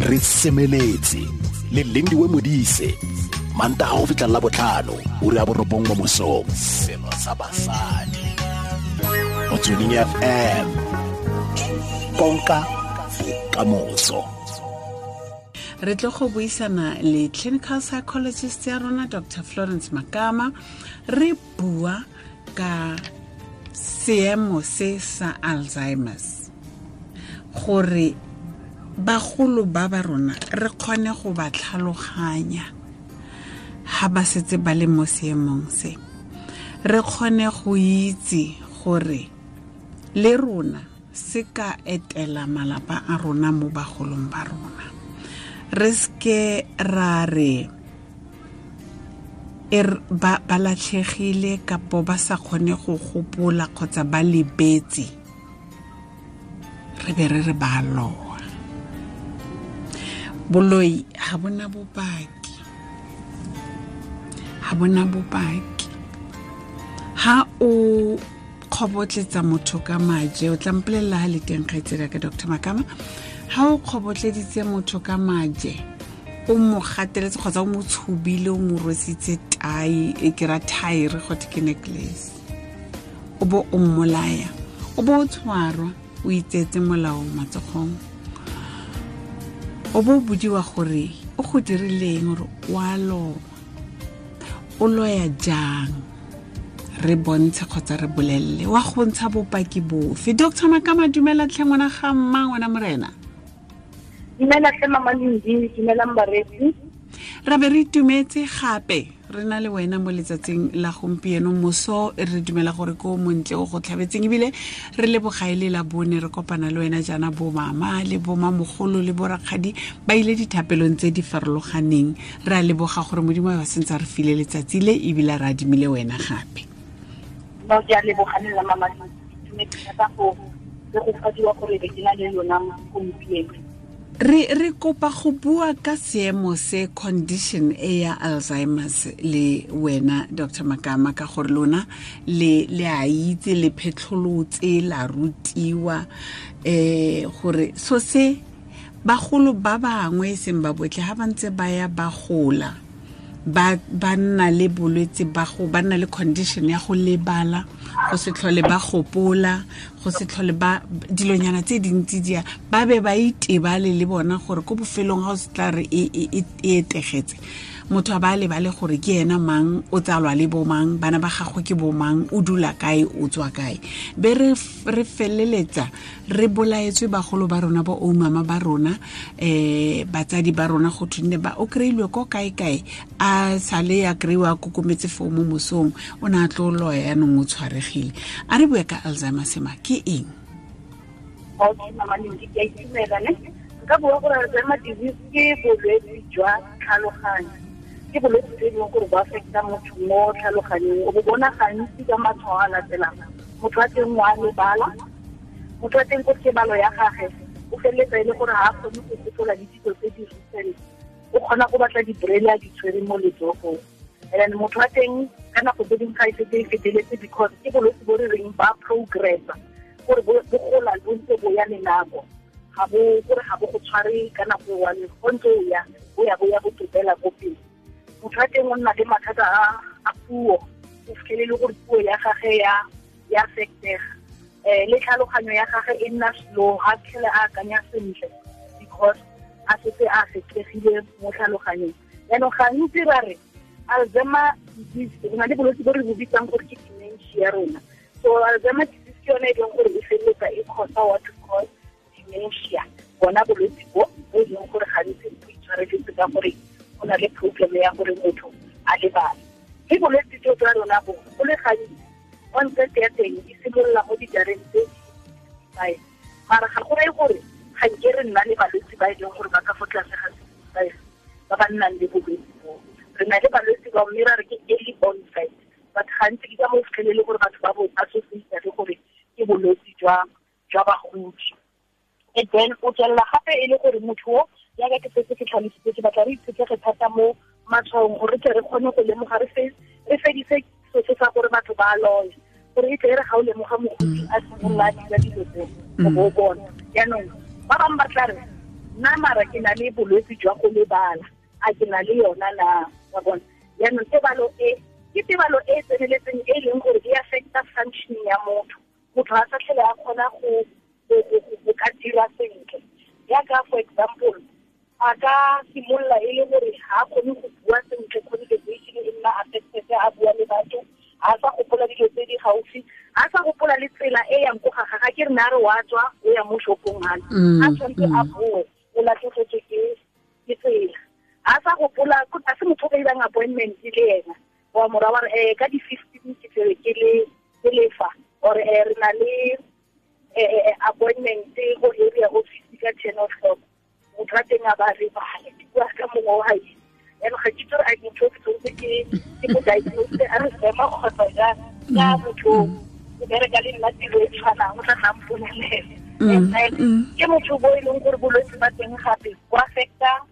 Re semeletse le Lindiwe Modise, Mantaga go fitlha la botlhano, ura ya 9 mo mosong. Selo sa basadi. Motsweding FM. Konka bokamoso. Re tlo go buisana le clinical psychologist ya rona, Dr Florence Makama. Re bua ka seemo se sa Alzheimer's, gore bagolo ba ba rona re kgone go ba tlhaloganya ha ba setse ba le mo seemong se, re kgone go itse gore le rona se ka etela malapa a rona mo bagolong ba rona. Re seke ra re ba latlhegile kapo ba sa kgone go gopola kgotsa ba lebetse, re be re re ba loa. Boloi ha bona bopaki, ha bona bopaki. Ha o kgobotletsa motho ka maje, o tla mpolelela ha le teng kgaitsedi ya ka Dr Makama, ha o kgobotleditse motho ka maje, o mo gateletse kgotsa o mo tshubile, o mo rwesitse tai, e ke ra thaere gotwe ke necklace, o bo o mmolaya, o bo o tshwarwa, o itseetse molao matsogong, o bo o bodiwa gore o go dirileng, gore o a loa, o loya jang, re bontshe kgotsa re bolelele, wa go ntsha bopaki bofe. Dr Makama, dumela tlhe ngwana ga mma, ngwana morena. Dumela tlhe mama Lindi, dumelang bareetsi. Ra be re itumetse gape re na le wena mo letsatsing la gompieno moso, re dumela gore ko montle o go tlhabetseng, ebile re leboga e le la bone re kopana le wena jaana, bo mama le bo mamogolo le bo rakgadi ba ile dithapelong tse di farologaneng. Re a leboga gore Modimo a ba sentse a re file letsatsi le, ebile re adimile wena gape. No, ke a leboga le nna mama Lindi, ke itumetse thata go le go fadiwa gore be ke na le lona gompieno. Re kopa go bua ka seemo se, condition e ya Alzheimer's le wena Dr Makama, ka gore lona le a itse, le phetlholotse, la rutiwa, gore so se bagolo ba bangwe e seng ba botlhe ha ba ntse ba ya ba gola, ba nna le bolwetse ba go, ba nna le condition ya go lebala, go se tlhole ba gopola, go se tlhole ba dilonyana tse dintsi dia, ba be ba itebale le bona gore ko bofelong ga o se tla re e etegetse, motho a ba lebale gore ke ena mang, o tsalwa le bo mang, bana ba gagwe ke bo mang, o dula kae, o tswa kae. Be re feleletsa re bolaetswe bagolo ba rona, bo oumama ba rona, batsadi ba rona, go thwe ba o kry-ilwe ko kae kae, a sale ya kry-iwa a kokometse foo mo mosong, o ne a tlo loya yanong o tshwaregile. A re bue ka Alzheimer's ma ke eng? Okay, mama Lindi, ke a itumela ne. Nka bua gore Alzheimer's disease ke bolwetse jwa tlhaloganyo. Ke bolwetse jo e leng gore bo affecta motho mo tlhaloganyong. O bo bona gantsi ka matshwao a latelang. Motho wa teng wa lebala, motho wa teng ko tebalo ya gagwe o feleletsa e le gore ga a kgone go gopola le dilo tse di recent, o kgona go batla di-braille a di tshwere mo letsogong. And then motho wa teng ka nako tse dingwe ga e setse e feteletse, because ke bolwetse bo re reng ba progressa, gore bo gola bo ntse bo ya le nako, ga bo gore ga bo go tshware ka nako e one, go ntse o ya, bo ya, bo ya bo topela ko pele. Motho wa teng o nna le mathata a puo, o fitlhele le gore puo ya gagwe ya affectega, le tlhaloganyo ya gagwe e nna slow, ga tlhele a akanya sentle because a setse a affectegile mo tlhaloganyong. Jaanong gantsi ra re Alzheimer disease, re na le bolwetse bo re bo bitsang gore ke dementia rona. So Alzheimer disease ke yone e leng gore e feleletsa e cause what we call dementia, bona bolwetse bo bo e leng gore gantsi bo itshwareletse ka gore go na le problem ya gore motho a lebale. Mme bolwetse jo jwa rona bo, go le gantsi onset ya teng e simolola mo dijareng tse 65, mara ga go reye gore ga nke re nna le balwetse ba e leng gore ba ka fo tlase ga 65 ba ba nnang le bolwetse bo. Re na le balwetse ba mme ra re ke early onset, but gantsi ke ka mo fitlhelele gore batho ba bo associate le gore ke bolwetse jwa bagodi. And then o tswelela gape e le gore motho o, jaaka ke setse ke tlhalositse, ke batla re itshetlege thata mo matshwaong gore tle re kgone go lemoga, re fedise se se sa gore batho ba loya, gore e tle e re ga o lemoga mogodi a simolola a dira dilo tse, o bo o bona. Jaanong ba bangwe ba tla re Nna mara ke na le bolwetse jwa go lebala, a ke na le yona na, wa bona. Yaanong tebalo e ke tebalo e tseneletseng e leng gore e affecta functioning ya motho. Motho a sa tlhole a kgona go ka dira sentle. Yaka for example, a ka simolola e le gore ga a kgone go bua sentle, communication e nna affected, a bua le batho, a sa gopola dilo tse di gaufi, a sa gopola le tsela e yang ko ga gagwe. Ke re na re wa tswa o ya mo shopong hane, a tshwanetse a boe, o latlhegetswe ke tsela. A sa gopola, a se motho o ka irang appointment le ena, wa mora wa re ka di-15 ke tlebe ke lefa, or re na le appointment go area office ka 10 o'clock. Motho a teng a ba lebale, ke bua ka mongwe wa hae. Yaanong ga ke itse gore a motho o ke tshwanetse ke mo diagnose a re sema kgotsa jang, ka motho o bereka le nna tiro e tshwanang, o tla tla mpolelela. And then ke motho bo e leng gore bolwetse ba teng gape bo affecta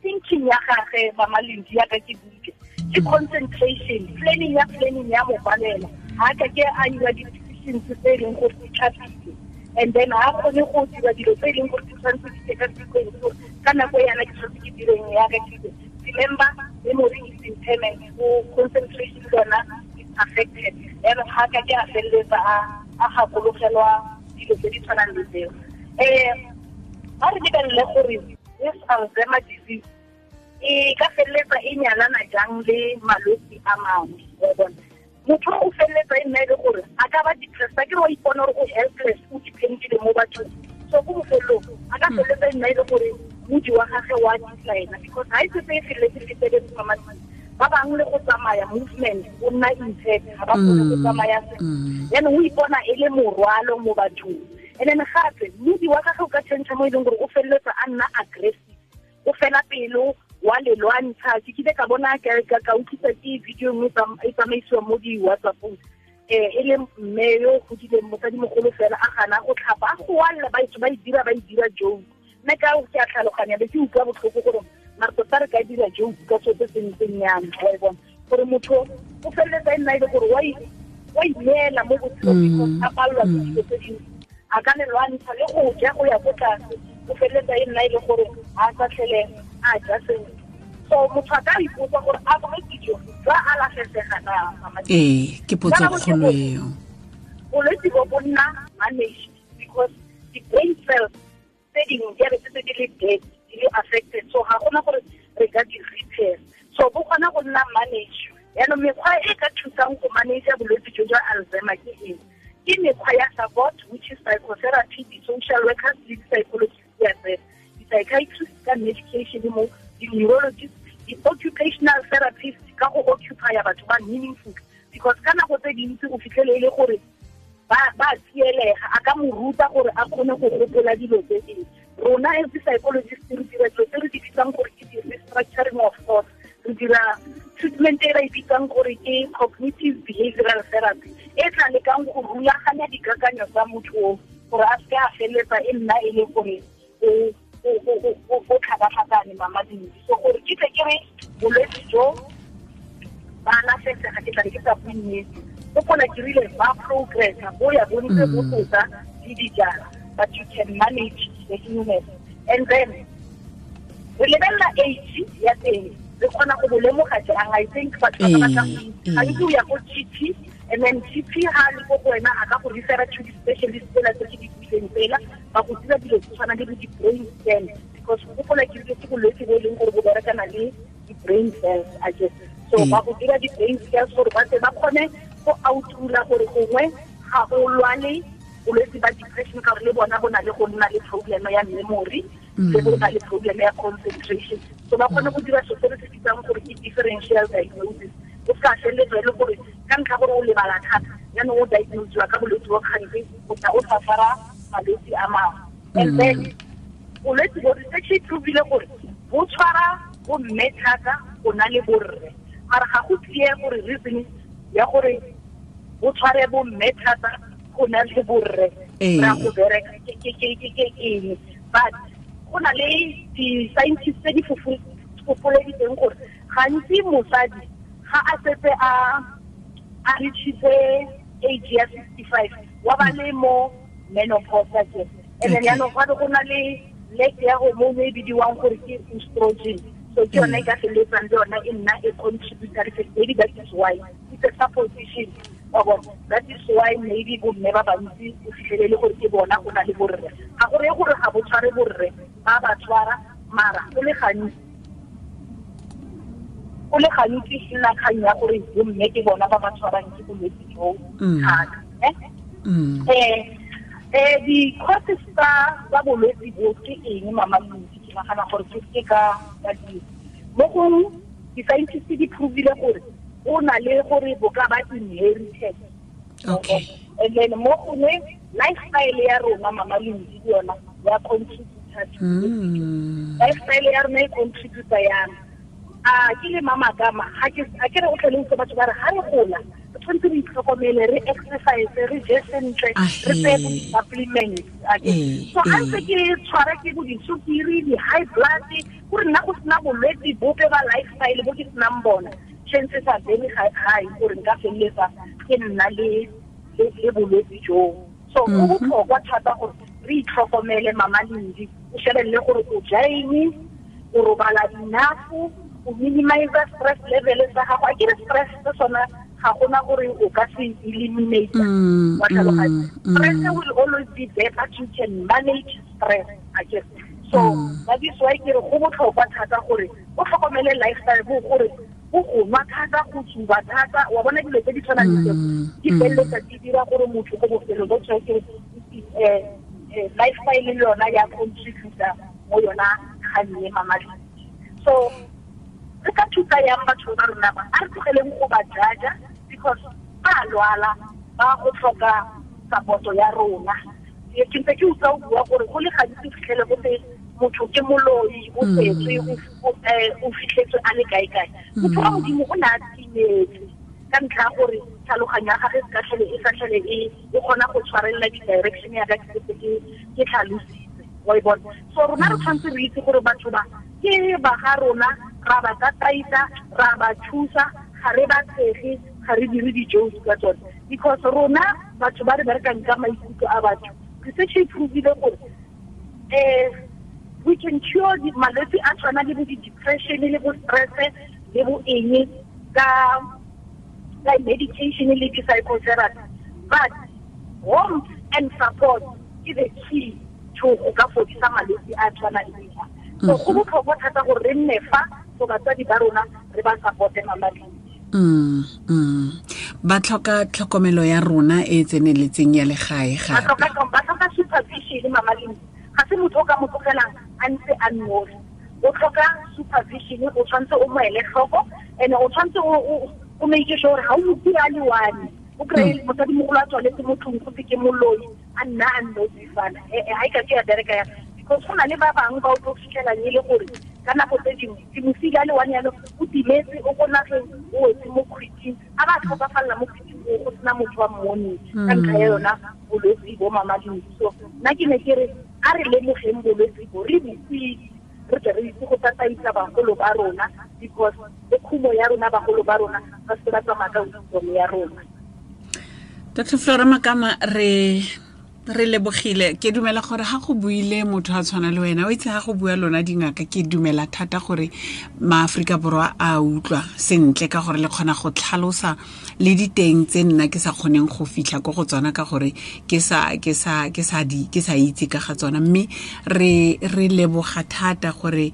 thinking ya gagwe, Mama Lindi, ya ka ke buile, ke concentration, planning ya mo palela. Ha ka ke a dira di-decisions tse e leng gore di tlhapile, and then ha kgone go dira dilo tse e leng gore di tshwanetse di tse ka sequence, gore ka nako yana ke tshwanetse ke direng ya ka ke. Remember, memory is impairment, so concentration yona is affected. Yaanong ha ka ke a feleletsa a gakologelwa dilo tse di tshwanang le tseo. Ba re lebelele gore this Alzheimer disease e ka feleletsa e nyalana jang le malwetse a mangwe, wa bona. Motho o feleletsa e nna e le gore a ka ba depressed, a ke re wa ipona gore o helpless, o dependile mo bathong. So ko bofelong a ka feleletsa e nna e le gore modi wa gagwe wa decline, because ha e setse e feleletse feteletse mama, ba bangwe le go tsamaya movement o nna impaired, ga ba kgone go tsamaya sentle. Yaanong o ipona e le morwalo mo bathong. And then gape modi wa gagwe o ka change mo e leng gore o feleletsa a nna aggressive, o fela pelo, wa le lwantsha. Ke kile ka bona ka utlwisa ke video nngwe e tsamaisiwa mo di-WhatsApp-ong, e le mme yo o godileng, mosadimogolo fela, a gana go tlhapa, a goalla, ba e dira joke. Nna ka ke a tlhaloganya, be ke utlwa botlhoko gore mare tota re ka dira joke ka seo se se ntseng yana, wa e bona. Gore motho o feleletsa e nna e le gore wa ineela mo botshelong because a palelwa ke dilo tse dintsi, a ka le lwantsha le go ja go ya ko tlase, o feleletsa e nna e le gore ga a sa tlhele a ja sentle. So motho a ka ipotsa gore a bolwetse jo jwa alafesega na, Mama? Ee, ke potso kgolo eo. Bolwetse bo bo nna managed because the brain cells tse dingwe di a be setse di le dead, di le affected, so ga gona gore re ka di repair. So bo kgona go nna managed. Yaanong mekgwa e ka thusang go manage bolwetse jo jwa Alzheimer ke eng? Ke mekgwa ya support, which is psychotherapy, di-social workers le di-psychologists, di-psychiatrists ka medication mo, di-neurologists, di-occupational therapists ka go occupy batho ba meaningful, because ka nako tse dintsi o fitlhele e le gore ba tsielega, a ka mo ruta gore a kgone go gopola dilo tse dingwe. Rona as di-psychologists re dira dilo tse re di bitsang gore ke di-restructuring of thought, re dira treatment e re e bitsang gore ke cognitive behavioral therapy, e tla lekang go rulaganya dikakanyo tsa motho o gore a seke a feleletsa e nna e le gore o tlhakatlhakane, Mama Lindi. So gore ke tle ke re bolwetse jo ba alafesega, ke tla be ke sa bue nnete. Gopola ke rile ba progressa, bo ya bo ntse bo tota le dijara, but you can manage the illness. And then re lebelela age ya teng, re kgona go bo lemoga jang? I think batho ba batla go itse. Gantsi o ya ko GP, and then GP ha le ko go wena a ka go refera to di-specialist tsela tse ke di buileng tsela, ba go dira dilo tse tshwanang le bo di-brain scan, because gopola ke rile ke bolwetse bo e leng gore bo berekana le di-brain cells, I guess. So ba go dira di-brain scans gore ba tle ba kgone go outrula gore gongwe ga o lwale bolwetse ba depression, ka gore le bona bo na le go nna le problem ya memory, le bo na le problem ya concentration. So ba kgone go dira so se re se bitsang gore ke differential diagnosis. O ska feleletsa e le gore ka ntlha gore o lebala thata, jaanong o diagnosiwa ka bolwetse bo kgantsi, o tla o safara malwetse a mangwe. And then bolwetse bo research e provile gore bo tshwara bo mme thata go na le borre, mara ga go clear gore reason ya gore bo tshware bo mme thata go na le borre ra go bereka ke eng. But go na le di-scientists tse di fofoleditseng gore gantsi mosadi ga a setse a reachitse age ya 65 wa ba le mo menopause ke. And then yaanong gape go na le lack ya hormone e bidiwang gore ke estrogen. So ke yone e ka feleletsang le yona e nna e contributory factor. Maybe that is why it's a supposition. That is why maybe bomme ba bantsi o fitlhelele gore ke bona go na le borre. Ga go reye gore ga bo tshware borre, ba ba tshwara, mara go le gantsi e nna kgang ya gore bomme ke bona ba ba tshwarang ke bolwetse jo thata. Di-causes tsa bolwetse bo ke eng, Mama Lindi? Ke nagana gore ke ka di mo gongwe di-scientist di provile gore o na le gore bo ka ba inherited. Okay. And then mo gongwe lifestyle ya rona, Mama Lindi, le yona ya contributor. Lifestyle ya rona e contributor yang. A ke le Mama Kama, ga ke re o tlhole utlwe batho ba re ga re gola re tshwanetse re itlhokomele, re exercise, re je sentle, re tseye bo di-supplements. So ga ntse ke tshwara ke bo disukiri, di-high blood, gore nna go sena bolwetse bope ba lifestyle bo ke senang bona, chances are very high gore nka feleletsa ke nna le bolwetse joo. So go botlhokwa thata gore re itlhokomele, Mama Lindi. O shebelele gore o ja eng, o robala enough, o minimize stress level sa gago. A ke re stress se sona ga gona gore o ka se eliminate. Wa tlhaloganya? Stress will always be there, but you can manage stress. A ke so that is why ke re go botlhokwa thata gore o tlhokomele lifestyle, bo gore o go nwa thata, go tsuba thata, wa bona dilo tse di tshwanang le tseo di feleletsa di dira gore motho ko bofelong bo tshware ke lifestyle le yona ya contributor mo yona kgang e, Mama Lindi. So re ka thusa yang batho ba rona ba? A re tlogeleng go ba jaja, because ba lwala, ba go tlhoka support ya rona. Ke ntse ke utlwa o bua gore go le gantsi o fitlhele go te motho ke moloi, o tsetswe, o fitlhetswe a le kae-kae. Motho wa Modimo o ne a timetse ka ntlha ya gore tlhaloganyo ya gagwe e sa tlhole e kgona go tshwarelela di-direction ya ka ke setse ke tlhalositse, wa e bona. So rona re tshwanetse re itse gore batho ba ke ba ga rona, ra ba tataisa, ra ba thusa, ga re ba tshege, ga re dire di-jokes ka tsone, because rona batho ba re berekang ka maikutlo a batho, research e provile gore we can cure malwetse a tshwana le bo di-depression le bo stress le bo eng ka medication le di-psychotherapy, but warmth and support is the key to go ka fodisa malwetse a tshwana le a. So go botlhokwa thata gore re nne fa for batsadi ba rona, re ba supporte, Mama Lindi. Ba tlhoka tlhokomelo ya rona e e tseneletseng ya legae gape. Ba tlhoka supervision, Mama Lindi. Ga se motho o ka mo tlogelang a ntse a nnosi, o tlhoka supervision. O tshwanetse o mo ele tlhoko, and o tshwanetse o make sure gore ga o mo a le one. O kry-e mosadimogolo a tswaletse mo tlong, go ke moloi, a nna a nnosi fana, ga e ka ke ya bereka ya, because go na le ba bangwe ba o tlo fitlhelang e le gore ka nako tse dingwe ke mosile a le one yalo, o timetse, o ko nageng, o wetse mo kgwiting, a ba tlhokafalela mo kgwiting o go sena motho wa mmoneng ka ntlha ya yona bolwetse bo, Mama Lindi. So nna ke ne ke re a re lemogeng bolwetse bo, re botse, re tle re itse go tataisa bagolo ba rona, because le khumo ya rona bagolo ba rona ba se ba tsamaya ka wisdom ya rona. Dr Flora Makama, re lebogile. Ke dumela gore ga go buile motho a tshwana le wena, o itse ga go bua lona dingaka, ke dumela thata gore maAforika Borwa a utlwa sentle, ka gore le kgona go tlhalosa le diteng tse nna ke sa kgoneng go fitlha ko go tsona, ka gore ke sa itse ka ga tsona. Mme re leboga thata gore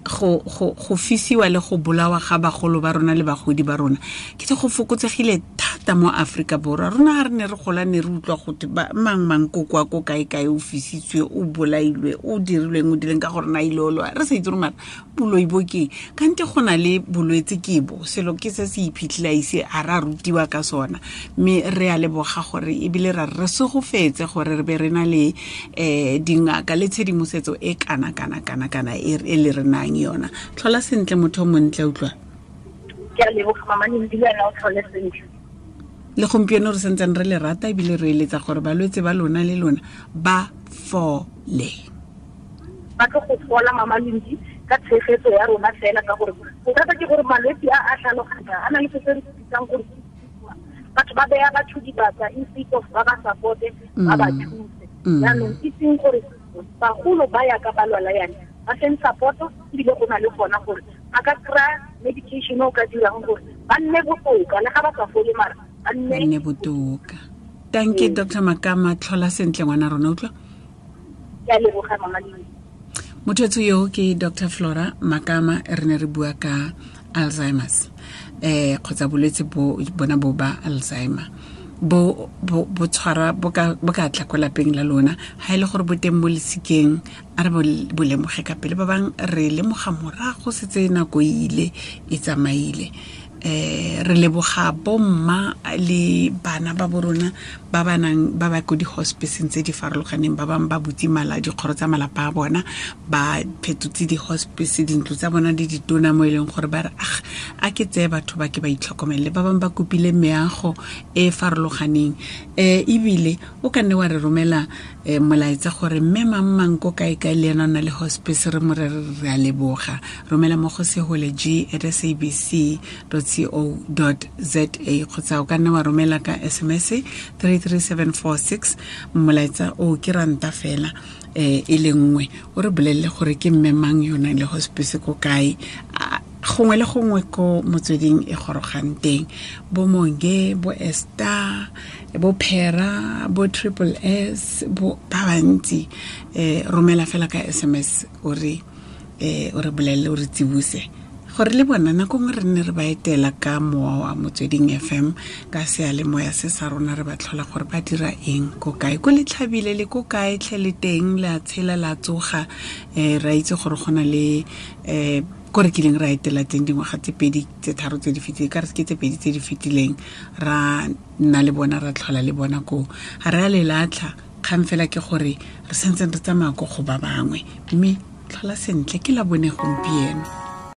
go fisiwa le go bolawa ga bagolo ba rona le bagodi ba rona ke te go fokotsegile thata mo Aforika Borwa. Rona ga re ne re gola, ne re utlwa gote mang mang ko kwa ko kae kae o fisitswe, o bolailwe, o dirilweng, o dileng, ka gore na ile o loa, re sa itse gore mara boloi bo keng, kante go na le bolwetse ke bo selo ke se se iphitlhile a ise a re a rutiwa ka sona. Mme re a leboga gore ebile ra re segofetse gore re be re na le dingaka le tshedimosetso e kana kana kana kana e le re nang yona. Tlhola sentle, motho o montle, utlwa. Ke a leboga, Mama Lindi, le wena o tlhole sentle. Le gompieno re sentseng re le rata, ebile re eletsa gore balwetse ba lona le lona ba fole. Ba tlo go fola, Mama Lindi, ka tshegetso ya rona fela, ka gore bothata ke gore malwetse a a tlhaloganya a na le se se re bitsang gore batho ba beya batho dibaka instead of ba ba supporte, ba ba thuse. Jaanong itseng gore Bagolo ba ya ka ba lwala yana ba seng support-o, ebile go na le gona gore ba ka kry-a medication o ka dirang gore ba nne botoka, le ga ba sa fole mara ba nne botoka. Thank you, Dr Makama. Tlhola sentle, ngwana rona, utlwa. Ke a leboga, mama Lindi. Motho yo ke Dr Flora Makama. Re ne re bua ka Alzheimer's, kgotsa bolwetse bo bona bo ba Alzheimer, bo bo bo tshwara, bo ka tla ko lapeng la lona. Ha ile gore bo teng mo lesikeng, a re bo lemoge ka pele. Ba bang re lemoga morago setse nako ile e tsamaile. Re leboga bomma le bana ba borona ba ba nang ba ba ko di-hospiceng tse di farologaneng. Ba bangwe ba butse mala dikgoro tsa malapa a bona, ba phetotse di-hospice dintlo tsa bona di ditona, mo e leng gore ba re, "Ah, a ke tseye batho ba ke ba itlhokomelele." Ba bangwe ba kopile meago e e farologaneng. Ebile o ka nne wa re romela molaetsa gore mme mang mang ko kae kae le ena o na le hospice, re mo re re a leboga. Romela mo go sehole g@sabc.co.za, kgotsa o ka nne wa romela ka SMS 33746. Molaetsa o ke ranta fela e le nngwe. O re bolelele gore ke mme mang yo nang le hospice ko kae. Gongwe le gongwe ko Motsweding e gorogang teng, bo Monge, bo Ester, bo Phera, bo Triple S, bo ba bantsi, romela fela ka SMS, o re bolelele, o re tsibuse gore le bona nako nngwe re nne re ba etela ka mowa wa Motsweding FM, ka seyalemoya se sa rona, re ba tlhola gore ba dira eng, ko kae, ko letlhabile le ko kae tlhe le teng, le a tshela, la tsoga. Ra itse gore go na le ko re kileng ra etela teng dingwaga tse 2, tse 3 tse di fetileng, ka re ke tse 2 tse di fetileng, ra nna le bona, ra tlhola le bona koo. Ga re a le latlha. Kgang fela ke gore re santseng re tsamaya ko go ba bangwe. Mme tlhola sentle, ke la bone gompieno.